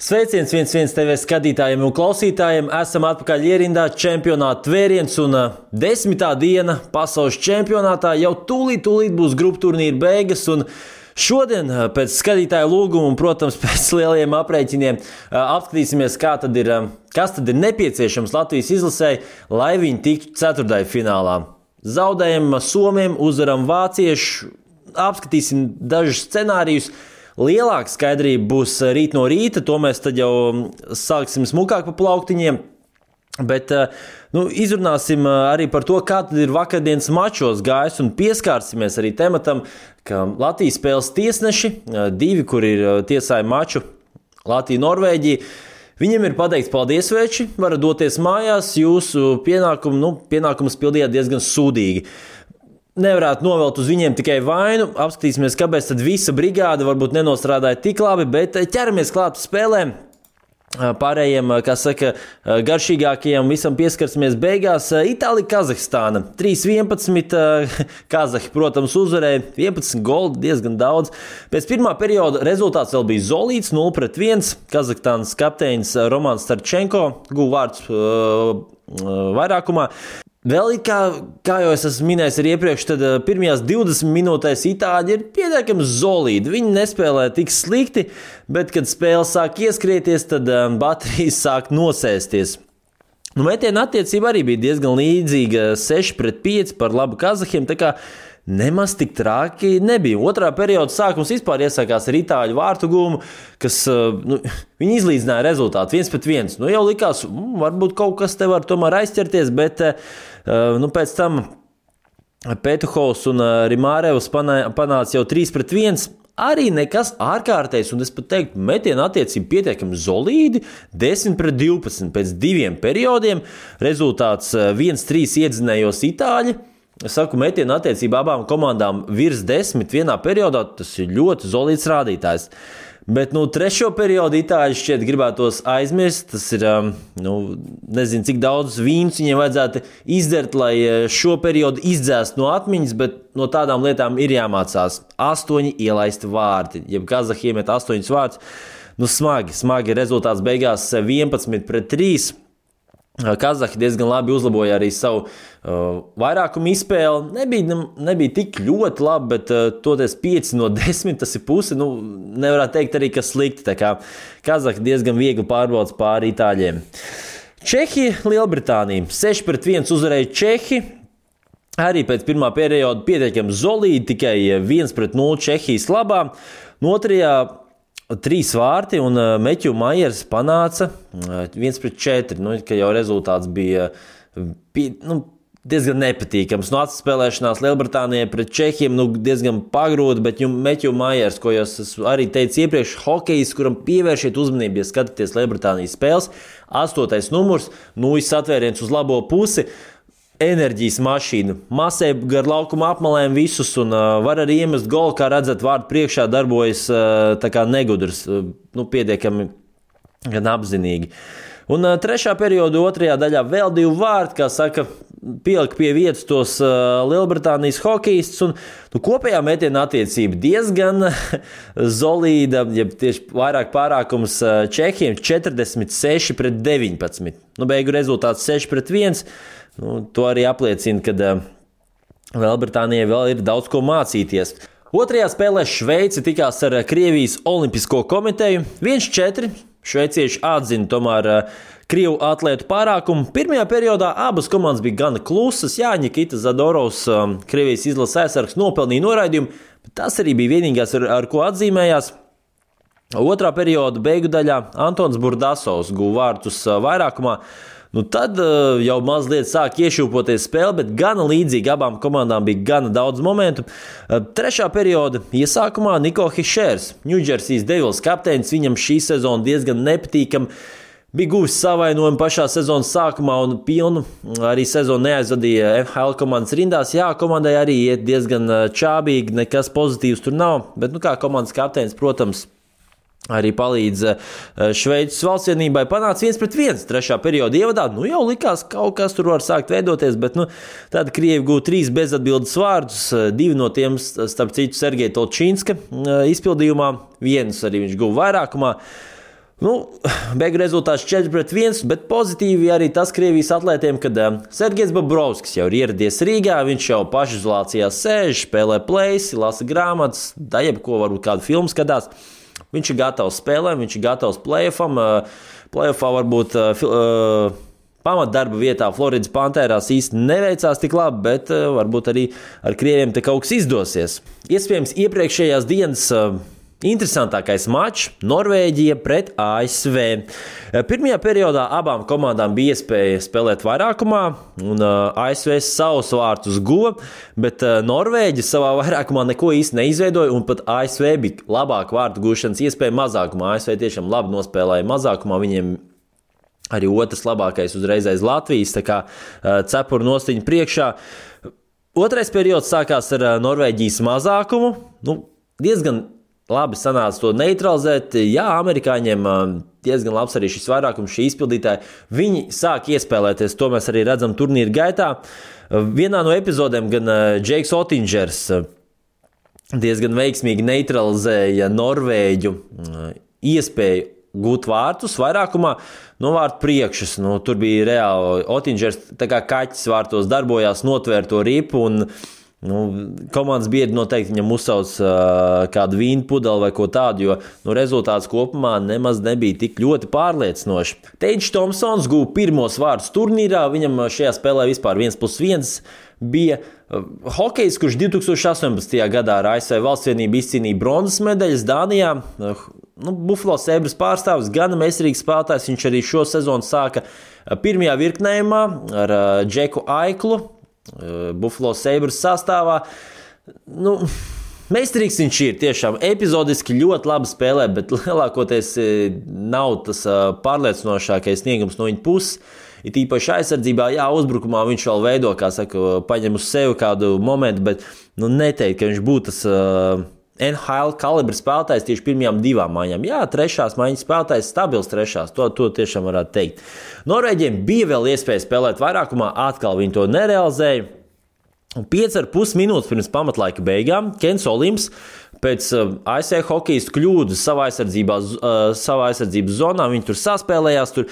Sveiciens 1-1 TV skatītājiem un klausītājiem. Esam atpakaļ ierindā čempionāta tvēriens un 10. diena pasaules čempionātā. Jau tūlīt būs grupu turnīra beigas un šodien pēc skatītāju lūguma un, protams, pēc lieliem aprēķiniem apskatīsimies, kas tad ir nepieciešams Latvijas izlasei, lai viņi tiktu ceturtdaļfinālā. Zaudējam Somiem, uzvaram vāciešu, apskatīsim dažus scenārijus. Lielāka skaidrība būs rīt no rīta, to mēs tad jau sāksim smukāk pa plauktiņiem, bet izrunāsim arī par to, kā tad ir vakardienas mačos gājis un pieskārsimies arī tematam, ka Latvijas spēles tiesneši, divi, kur ir tiesāja maču Latvija-Norvēģija, viņiem ir pateikts paldies veči, varat doties mājās, jūsu pienākumus pildījāt diezgan sūdīgi. Nevarētu novelt uz viņiem tikai vainu, apskatīsimies, kāpēc tad visa brigāde varbūt nenostrādāja tik labi, bet ķeramies klāt spēlēm. Pārējiem, garšīgākajiem visam pieskarsimies beigās. Itālija-Kazahstāna 3-11, Kazahi, protams, uzvarēja 11 goli, diezgan daudz. Pēc pirmā perioda rezultāts vēl bija zolīts 0-1. Kazahstānas kapteinis Romans Starčenko guva vārdus vairākumā. Vēl kā jau es esmu minējis arī iepriekš, tad pirmajās 20 minūtēs itāļi ir pietiekami zolīdi. Viņi nespēlē tik slikti, bet, kad spēle sāk ieskrieties, tad baterijas sāk nosēsties. Metiena attiecība arī bija diezgan līdzīga 6-5 par labu Kazahiem, tā kā nemaz tik traki nebija. Otrā perioda sākums vispār iesākās ar itāļu vārtu gūmu, kas viņi izlīdzināja rezultātu 1-1. Jau likās, varbūt kaut kas te var tomēr aizķerties, bet pēc tam Petuhovs un Rimārevs panāca jau 3-1. Arī nekas ārkārtējs, un es pat teiktu, metiena attiecība pietiekami zolīdi, 10-12 pēc diviem periodiem. Rezultāts 1-3 iedzinējos itāļi. Es saku, metiena attiecība abām komandām virs 10 vienā periodā, tas ir ļoti zolīds rādītājs. Bet, trešo periodu itāļi šķiet gribētos aizmirst, tas ir, nezinu, cik daudz vīns viņiem vajadzētu izdzert, lai šo periodu izdzēst no atmiņas, bet no tādām lietām ir jāmācās. 8 ielaisti vārti, ja Kazahi iemet 8 vārtus, smagi rezultāts beigās 11-3. Kazahi diezgan labi uzlaboja arī savu vairākumu izspēli. Nebija tik ļoti labi, bet toties 5-10, tas ir pusi. Nevarētu teikt arī, ka slikti. Tā kā Kazahi diezgan viegli pārbaudas pāri itāļiem. Čehija, Lielbritānija. 6-1 uzvarēja Čehi. Arī pēc pirmā perioda pietiekami zolīdi, tikai 1-0 Čehijas labā. Otrajā 3 vārti un Meķu Majers panāca 1-4, ka jau rezultāts bija diezgan nepatīkams. Atspēlēšanās Lielbritānijai pret Čehiem diezgan pagrūti, bet Meķu Majers, ko jau es arī teicu iepriekš, hokejs, kuram pievēršiet uzmanību, ja skatāties Lielbritānijas spēles, 8. numurs, satvēriens uz labo pusi. Enerģijas mašīna, masē gar laukuma apmalēm visus un var arī iemest golu, kā redzat, vārdu priekšā darbojas tā kā negudrs, pietiekami gan apzinīgi. Un trešā perioda otrajā daļā vēl 2 vārti, kā saka, pielika pie vietas tos Lielbritānijas hokejistus un kopējā metiena attiecība diezgan zolīda, ja tieši vairāk pārākums Čehiem 46-19. Beigu rezultāts 6-1. To arī apliecina, ka Lielbritānijai vēl ir daudz ko mācīties. Otrajā spēlē Šveice tikās ar Krievijas Olimpisko komiteju. 1-4. Šveicieši atzina tomēr Krievu atlētu pārākumu. Pirmajā periodā abas komandas bija gana klusas. Jā, Nikita Zadorovs, Krievijas izlases aizsargs, nopelnīja noraidījumu, bet tas arī bija vienīgais, ar ko atzīmējās. Otrā perioda beigu daļā Antons Burdasovs guva vārtus vairākumā. Tad jau mazliet sāk iešūpoties spēle, bet gana līdzīgi abām komandām bija gana daudz momentu. Trešā perioda iesākumā Niko Hišers, Ņūdžersijas Devils kapteinis, viņam šī sezona diezgan nepatīkama. Bija guvis savainojumu pašā sezonas sākumā un pilnu arī sezonu neaizvadīja NHL komandas rindās. Jā, komandai arī iet diezgan čābīgi, nekas pozitīvs tur nav, bet kā komandas kapteinis, protams, arī palīdz Šveices valstsienībai, panāca 1-1 trešā perioda ievadā. Jau likās, kaut kas tur var sākt veidoties, bet tad Krievi gūta 3 bezatbildes vārdus, 2 no tiem, starp citu, Sergeja Tolčīnska izpildījumā, 1 arī viņš guva vairākumā. Beigu rezultāts 4-1, bet pozitīvi arī tas Krievijas atlētiem, kad Sergejs Bobrovskis jau ir ieradies Rīgā, viņš jau pašizolācijā sēž, spēlē plēsi, lasa grāmatas, jebko varbūt kādu filmu skatās. Viņš ir gatavs spēlēm, viņš ir gatavs play-offam. Play-offā varbūt pamatdarba vietā Floridas Pantērās īsti neveicās tik labi, bet varbūt arī ar krieviem te kaut kas izdosies. Iespējams, iepriekšējās dienas interesantākais mačs - Norvēģija pret ASV. Pirmajā periodā abām komandām bija iespēja spēlēt vairākumā, un ASV savus vārtus guva, bet Norvēģi savā vairākumā neko īsti neizveidoja, un pat ASV bija labāka vārtu gūšanas iespēja mazākumā. ASV tiešām labi nospēlēja mazākumā, viņiem arī otrs labākais uzreiz aiz Latvijas, tā kā cepuru nostiņa priekšā. Otrais periods sākās ar Norvēģijas mazākumu, diezgan labi sanāca to neutralizēt. Jā, amerikāņiem diezgan labs arī šis vairākums, šī izpildītāja. Viņi sāk iespēlēties, to mēs arī redzam turnīra gaitā. Vienā no epizodēm gan Džeiks Otingers diezgan veiksmīgi neutralizēja Norvēģu iespēju gūt vārtus vairākumā no vārtu priekšas. Tur bija reāli Otingers tā kā kaķis vārtos darbojās, notvēr to ripu un komandas biedri noteikti viņam uzsauc kādu vīnu pudeli vai ko tādu, jo rezultāts kopumā nemaz nebija tik ļoti pārliecinoši. Teidžs Tomsons guva pirmos vārdus turnīrā, viņam šajā spēlē vispār 1+1 bija hokejs, kurš 2018. gadā ar ASV Valstsvienību izcīnīja bronzas medaļas Dānijā. Buffalo Sabres pārstāvis, gan meistarīgs spēlētājs, viņš arī šo sezonu sāka pirmajā virknējumā ar Džeku Aiklu. Buffalo Sabres sastāvā. Meistarīgs viņš ir, tiešām epizodiski ļoti labi spēlē, bet lielākoties nav tas pārliecinošākais sniegums no viņa puses. Ir īpaši aizsardzībā, uzbrukumā viņš vēl veido, kā saka, paņem uz sevi kādu momentu, bet neteikt, ka viņš būtu tas NHL kalibra spēlētājs tieši pirmajām divām maiņām. Trešās maiņas spēlētājs, stabils trešās, to tiešām varētu teikt. Norvēģiem bija vēl iespēja spēlēt vairākumā, atkal viņi to nerealizēja. 5,5 minūtes pirms pamatlaika beigām Kens Olims pēc ASV hokejistu kļūdas savā aizsardzības zonā, viņi tur saspēlējās, tur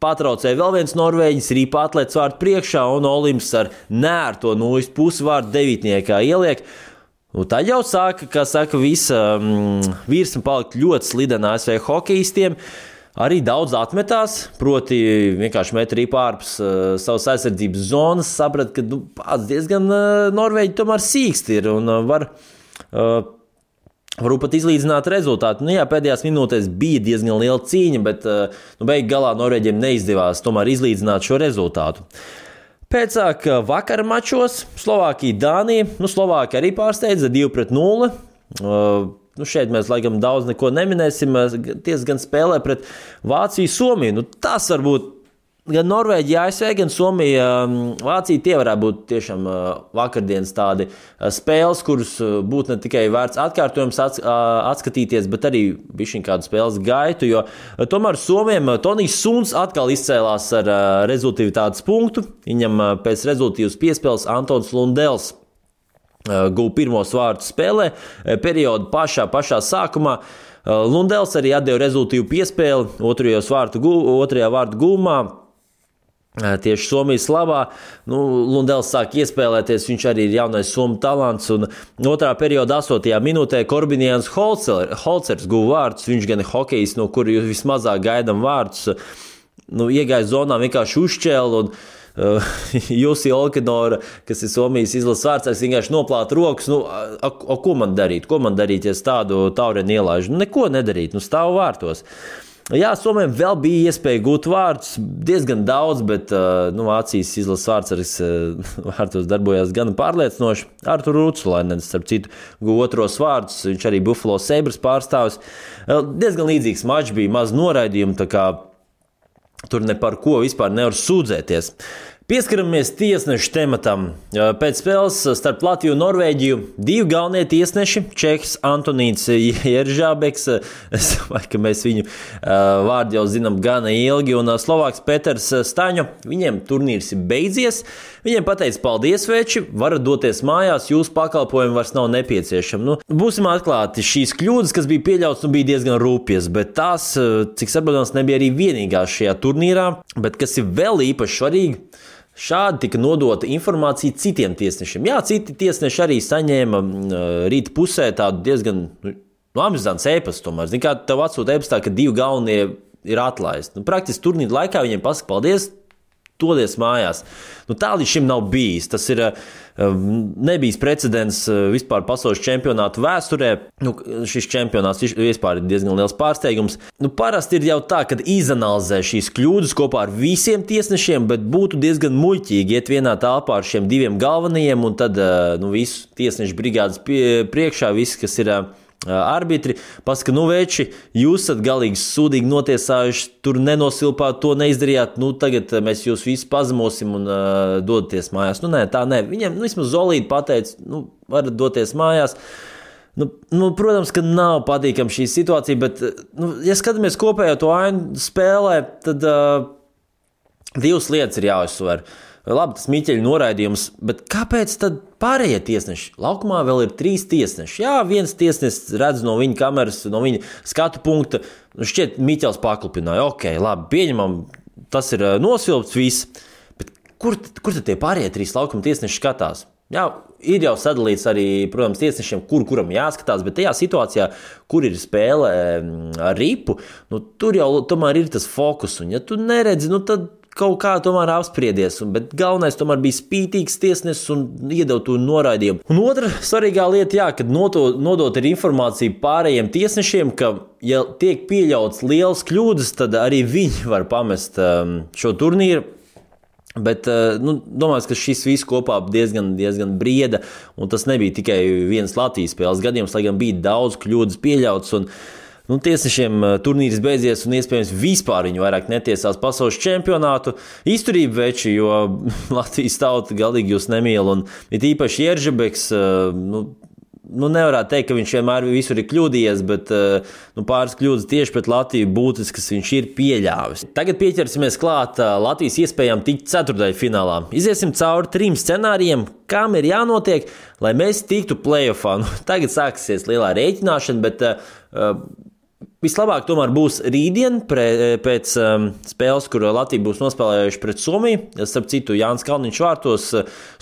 patraucēja vēl viens norvēģis, rīpa atlēts vārdu priekšā, un Olims ar nērto nulles pusvārdu devītniekā ieliek. Tad jau sāka, kā saka, visa virsma palikt ļoti slidena ASV hokejistiem. Arī daudz atmetās, proti vienkārši met rīpa ārpus savas aizsardzības zonas, saprat, ka pats diezgan Norvēģi tomēr sīksti ir un varu pat izlīdzināt rezultātu. Pēdējās minūtēs bija diezgan liela cīņa, bet beigu galā Norvēģiem neizdevās tomēr izlīdzināt šo rezultātu. Pēcāk vakara mačos Slovākija, Dānija. Slovākija arī pārsteidza 2-0. Šeit mēs laikam daudz neko neminēsim. Diezgan spēlē pret Vāciju, Somiju. Tas varbūt gan Norvēģija, ASV, gan Somija, Vācija, tie varētu būt tiešām vakardienas tādi spēles, kuras būtu ne tikai vērts atkārtojums atskatīties, bet arī bišķiņ kādu spēles gaitu, jo tomēr Somiem Tonijs Suns atkal izcēlās ar rezultātas punktu. Viņam pēc rezultātas piespēles Antons Lundels guva pirmos vārdus spēlē, periodu pašā sākumā. Lundels arī atdeva rezultātu piespēli otrajā vārdu gūmā. Tieši Somijas labā. Lundels sāk iespēlēties, viņš arī ir jaunais Somu talants. Un otrā perioda 8. minūtē Korbinians Holcers guva vārdus. Viņš gan ir hokejs, no kura jūs vismazāk gaidām vārdus. Iegāja zonā, vienkārši uzšķēla un Jussi Olkinora, kas ir Somijas izlases vārdsargs, vienkārši noplāta rokas. Ko man darīt? Ko man darīt, ja es tādu taureni ielaižu? Neko nedarīt, stāvu vārtos. Somijam vēl bija iespēja gūt vārdus, diezgan daudz, bet Vācijas izlases vārdsargs vārtos darbojās gan pārliecinoši. Artur Rutsulainens, starp citu, guva otros vārdus, viņš arī Buffalo Sabres pārstāvis. Diezgan līdzīgs mačs bija, maz noraidījumu, tā kā tur ne par ko vispār nevar sūdzēties. Pieskaramies tiesnešu tematam. Pēc spēles starp Latviju un Norvēģiju divi galvenie tiesneši, čehs Antonīns Jeržābeks, es domāju, ka mēs viņu vārdu jau zinām gana ilgi, un Slovāks Peters Staņo, viņiem turnīrs ir beidzies. Viņiem pateica paldies, veči, varat doties mājās, jūsu pakalpojumi vairs nav nepieciešami. Būsim atklāti, šīs kļūdas, kas bija pieļautas, bija diezgan rūpjas, bet tās, cik saprotams, nebija arī vienīgās šajā turnīrā, bet kas ir vēl īpaši svarīgi, šādi tika nodota informācija citiem tiesnešiem. Jā, citi tiesneši arī saņēma rīta pusē tādu diezgan amizantu ēpastu tomēr. Zini, kā tev atsūta ēpastā, ka divi galvenie ir atlaisti. Praktiski turnīra laikā viņiem pasaka paldies, dodies mājās. Tā līdz šim nav bijis. Tas ir nebijis precedents vispār pasaules čempionātu vēsturē. Šis čempionāts vispār ir diezgan liels pārsteigums. Parasti ir jau tā, kad izanalizē šīs kļūdas kopā ar visiem tiesnešiem, bet būtu diezgan muļķīgi iet vienā telpā ar šiem diviem galvenajiem un tad visu tiesnešu brigādes priekšā, visi, kas ir arbitri, pasaka, veči, jūs esat galīgi sūdīgi notiesājuši, tur nenosilpāt, to neizdarījāt, tagad mēs jūs visus pazemosim un dodaties mājās. Tā nē. Viņiem vismaz zolīti pateica, varat doties mājās. Protams, ka nav patīkama šī situācija, bet, ja skatāmies kopējo to ainu spēlē, tad divas lietas ir jāuzsver. Labi, tas Miķeļa noraidījums, bet kāpēc tad pārējie tiesneši? Laukumā vēl ir 3 tiesneši. Jā, viens tiesnesis redz no viņa kameras, no viņa skatu punkta. Šķiet, Miķels paklupināja. Ok, labi, pieņemam, tas ir nosilpts viss. Bet kur tad tie pārējie 3 laukuma tiesneši skatās? Jā, ir jau sadalīts arī, protams, tiesnešiem, kuram jāskatās, bet tajā situācijā, kur ir spēle ar ripu, tur jau tomēr ir tas fokus. Un ja tu neredzi, tad kaut kā tomēr apspriedies, bet galvenais tomēr bija spītīgs tiesnesis un iedeva to noraidījumu. Un otra svarīgā lieta, kad nodot ir informācija pārējiem tiesnešiem, ka, ja tiek pieļauts liels kļūdas, tad arī viņi var pamest šo turnīru. Bet domāju, ka šis viss kopā diezgan brieda, un tas nebija tikai viens Latvijas spēles gadījums, lai gan bija daudz kļūdas pieļauts, un tiesnešiem turnīrs beidzies, un iespējams vispār viņi vairāk netiesās pasaules čempionātu. Izturība veči, jo Latvijas tauta galīgi jūs nemīl, un ir īpaši Jeržabeks, nevarētu teikt, ka viņš vienmēr visur ir kļūdījies, bet pāris kļūdas tieši pret Latviju būtiskas viņš ir pieļāvis. Tagad pieķersimies klāt Latvijas iespējām tikt ceturtdaļfinālā. Iziesim cauri 3 scenārijiem, kam ir jānotiek, lai mēs tiktu play-offā. Tagad sāksies lielā rēķināšana, bet vislabāk tomēr būs rītdien pēc spēles, kur Latvija būs nospēlējuši pret Somiju. Starp citu, Jānis Kalniņš vārtos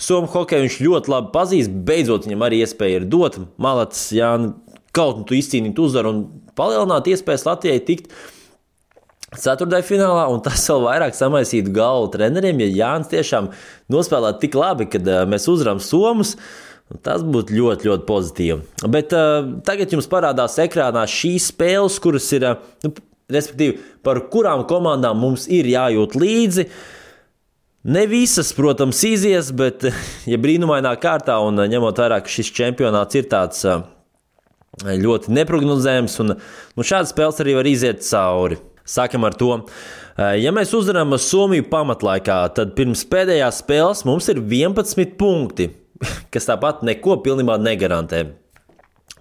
Somu hokeju viņš ļoti labi pazīst. Beidzot viņam arī iespēja ir dot. Malats, Jāni, kaut tu izcīnīt uzvaru un palielināt iespējas Latvijai tikt ceturtdaļfinālā, un tas vēl vairāk samaisītu galvu treneriem, ja Jānis tiešām nospēlētu tik labi, kad mēs uzvaram Somus. Tas būtu ļoti, ļoti pozitīvi. Bet tagad jums parādās ekrānā šīs spēles, kuras ir, respektīvi, par kurām komandām mums ir jājūt līdzi. Ne visas, protams, izies, bet ja brīnumainā kārtā un ņemot vērā, ka šis čempionāts ir tāds ļoti neprognozējams, un šādas spēles arī var iziet cauri. Sākam ar to. Ja mēs uzvaram Somiju pamatlaikā, tad pirms pēdējās spēles mums ir 11 punkti. Kas tāpat neko pilnībā negarantē.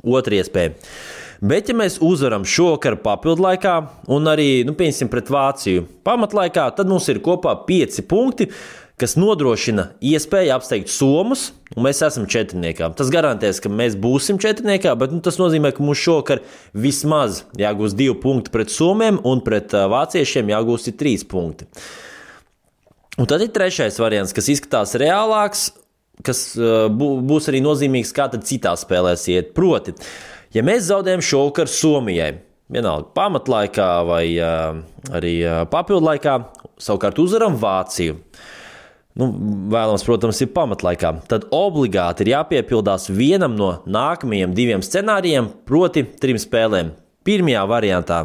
Otra iespēja. Bet, ja mēs uzvaram šovakar papildlaikā un arī, pieņemsim, pret Vāciju pamatlaikā, tad mums ir kopā 5 punkti, kas nodrošina iespēju apsteigt Somus, un mēs esam četrniekā. Tas garantēs, ka mēs būsim četrniekā, bet tas nozīmē, ka mums šovakar vismaz jāgūst 2 punkti pret Somiem un pret vāciešiem jāgūst 3 punkti. Un tad ir trešais variants, kas izskatās reālāks, kas būs arī nozīmīgs, kā tad citās spēlēs iet. Proti, ja mēs zaudējam šovakar Somijai, vienalga pamatlaikā vai arī papildlaikā, savukārt uzvaram Vāciju, vēlams, protams, ir pamatlaikā, tad obligāti ir jāpiepildās vienam no nākamajiem 2 scenārijiem, proti 3 spēlēm. Pirmajā variantā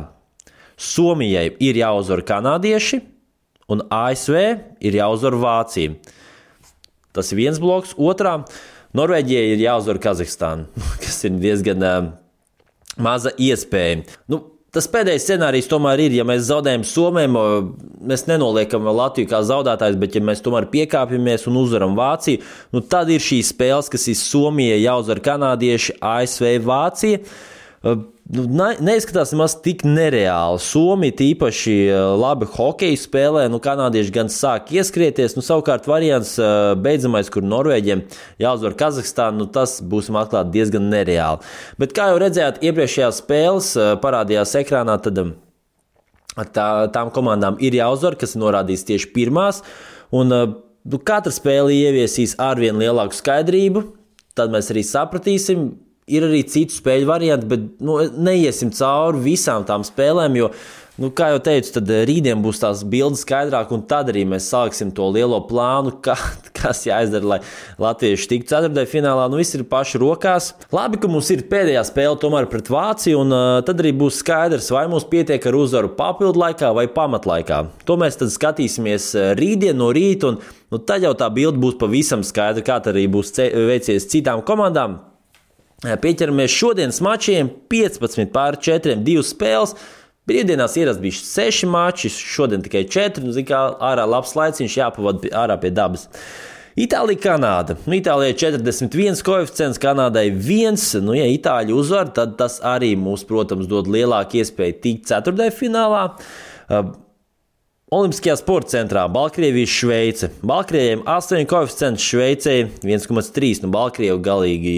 Somijai ir jāuzvar kanādieši un ASV ir jāuzvar Vācija. Tas ir viens bloks. Otrā, Norvēģijai ir jāuzvar Kazahstāna, kas ir diezgan maza iespēja. Tas pēdējais scenārijs tomēr ir, ja mēs zaudējam Somijam, mēs nenoliekam Latviju kā zaudētājs, bet ja mēs tomēr piekāpjamies un uzvaram Vāciju, tad ir šīs spēles, kas ir Somijai jāuzvar kanādieši, ASV, Vācija. Neizskatās nemaz tik nereāli. Somija tīpaši labi hokeju spēlē, kanādieši gan sāk ieskrieties, savukārt variants beidzamais, kur Norvēģiem jāuzvar Kazahstānu, tas būsim atklāti diezgan nereāli. Bet kā jau redzējāt, iepriekšējās spēles parādījās ekrānā, tad tām komandām ir jāuzvar, kas norādīs tieši pirmās, un katra spēle ieviesīs arvien lielāku skaidrību, tad mēs arī sapratīsim. Ir arī citu spēļu varianti, bet neiesim cauri visām tām spēlēm, jo, kā jau teicu, tad rītdien būs tās bildes skaidrāk, un tad arī mēs sāksim to lielo plānu, kas jāizdara, lai latvieši tiktu ceturtajā finālā. Viss ir paši rokās. Labi, ka mums ir pēdējā spēle tomēr pret Vāciju, un tad arī būs skaidrs, vai mums pietiek ar uzvaru papildu laikā vai pamatlaikā. To mēs tad skatīsimies rītdien no rīta, un tad jau tā bilde būs pavisam skaidra, kā tad arī būs veicies citām komandām. Pieķeramies šodienas mačiem, 15-4, 2 spēles. Brīvdienās ierast bija 6 mači, šodien tikai 4. Kā ārā labs laiciņš jāpavada ārā pie dabas. Itālija, Kanāda. Itālijai 41 koeficients, Kanādai 1. Ja Itāļi uzvar, tad tas arī mums, protams, dod lielāku iespēju tikt ceturtajā finālā. Olimpiskajā sporta centrā Baltkrievija, Šveice. Baltkrieviem 8 koeficients, Šveicei 1,3. Baltkrievi galīgi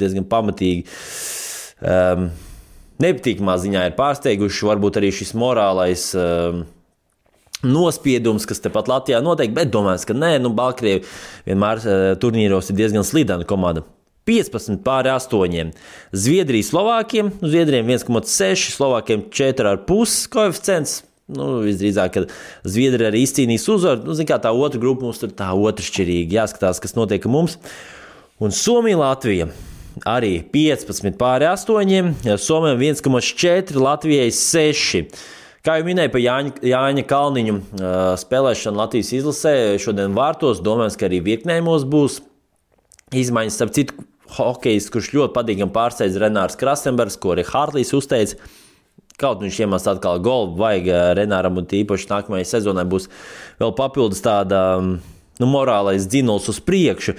diezgan pamatīgi. Nepatīkamā ziņā ir pārsteiguši, varbūt arī šis morālais nospiedums, kas tepat Latvijā notiek, bet domāju, ka nē, Baltkrievi vienmēr turnīros ir diezgan slidena komanda. 15-8. Zviedrija, Slovākiem. Zviedriem 1,6, Slovākiem 4,5 koeficients. Visdrīzāk, ka Zviedri arī izcīnīs uzvaru. Kā tā otra grupa mums tur tā otršķirīgi. Jāskatās, kas notiek mums. Un Somija, Latvija arī 15-8. Somijam 1,4, Latvijai 6. Kā jau minēju par Jāņa Kalniņu spēlēšanu Latvijas izlasē, šodien vārtos, domājams, ka arī virknējumos būs izmaiņas. Starp citu, hokejs, kurš ļoti patīkami pārsteidz Renārs Krasenbergs, ko arī Hārtlīs uzteica. Kaut viņš iemest atkal golu, vajag Renāram, un tīpaši nākamajai sezonai būs vēl papildus tāda morālais dzinuls uz priekšu.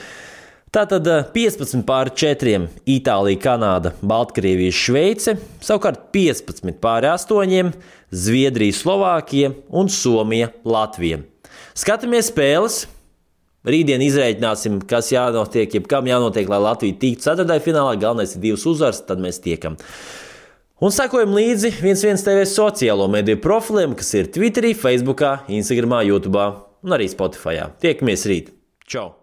Tātad 15-4 Itālija, Kanāda, Baltkrievija, Šveice, savukārt 15-8 Zviedrija, Slovākija un Somija, Latvija. Skatāmies spēles. Rītdien izrēķināsim, kas jānotiek, jebkam jānotiek, lai Latvija tiktu ceturtajā finālā. Galvenais ir 2 uzvaras, tad mēs tiekam. Un sekojam līdzi 11 TV sociālo mediju profiliem, kas ir Twitterī, Facebookā, Instagramā, YouTubā un arī Spotifyā. Tiekamies rīt. Čau!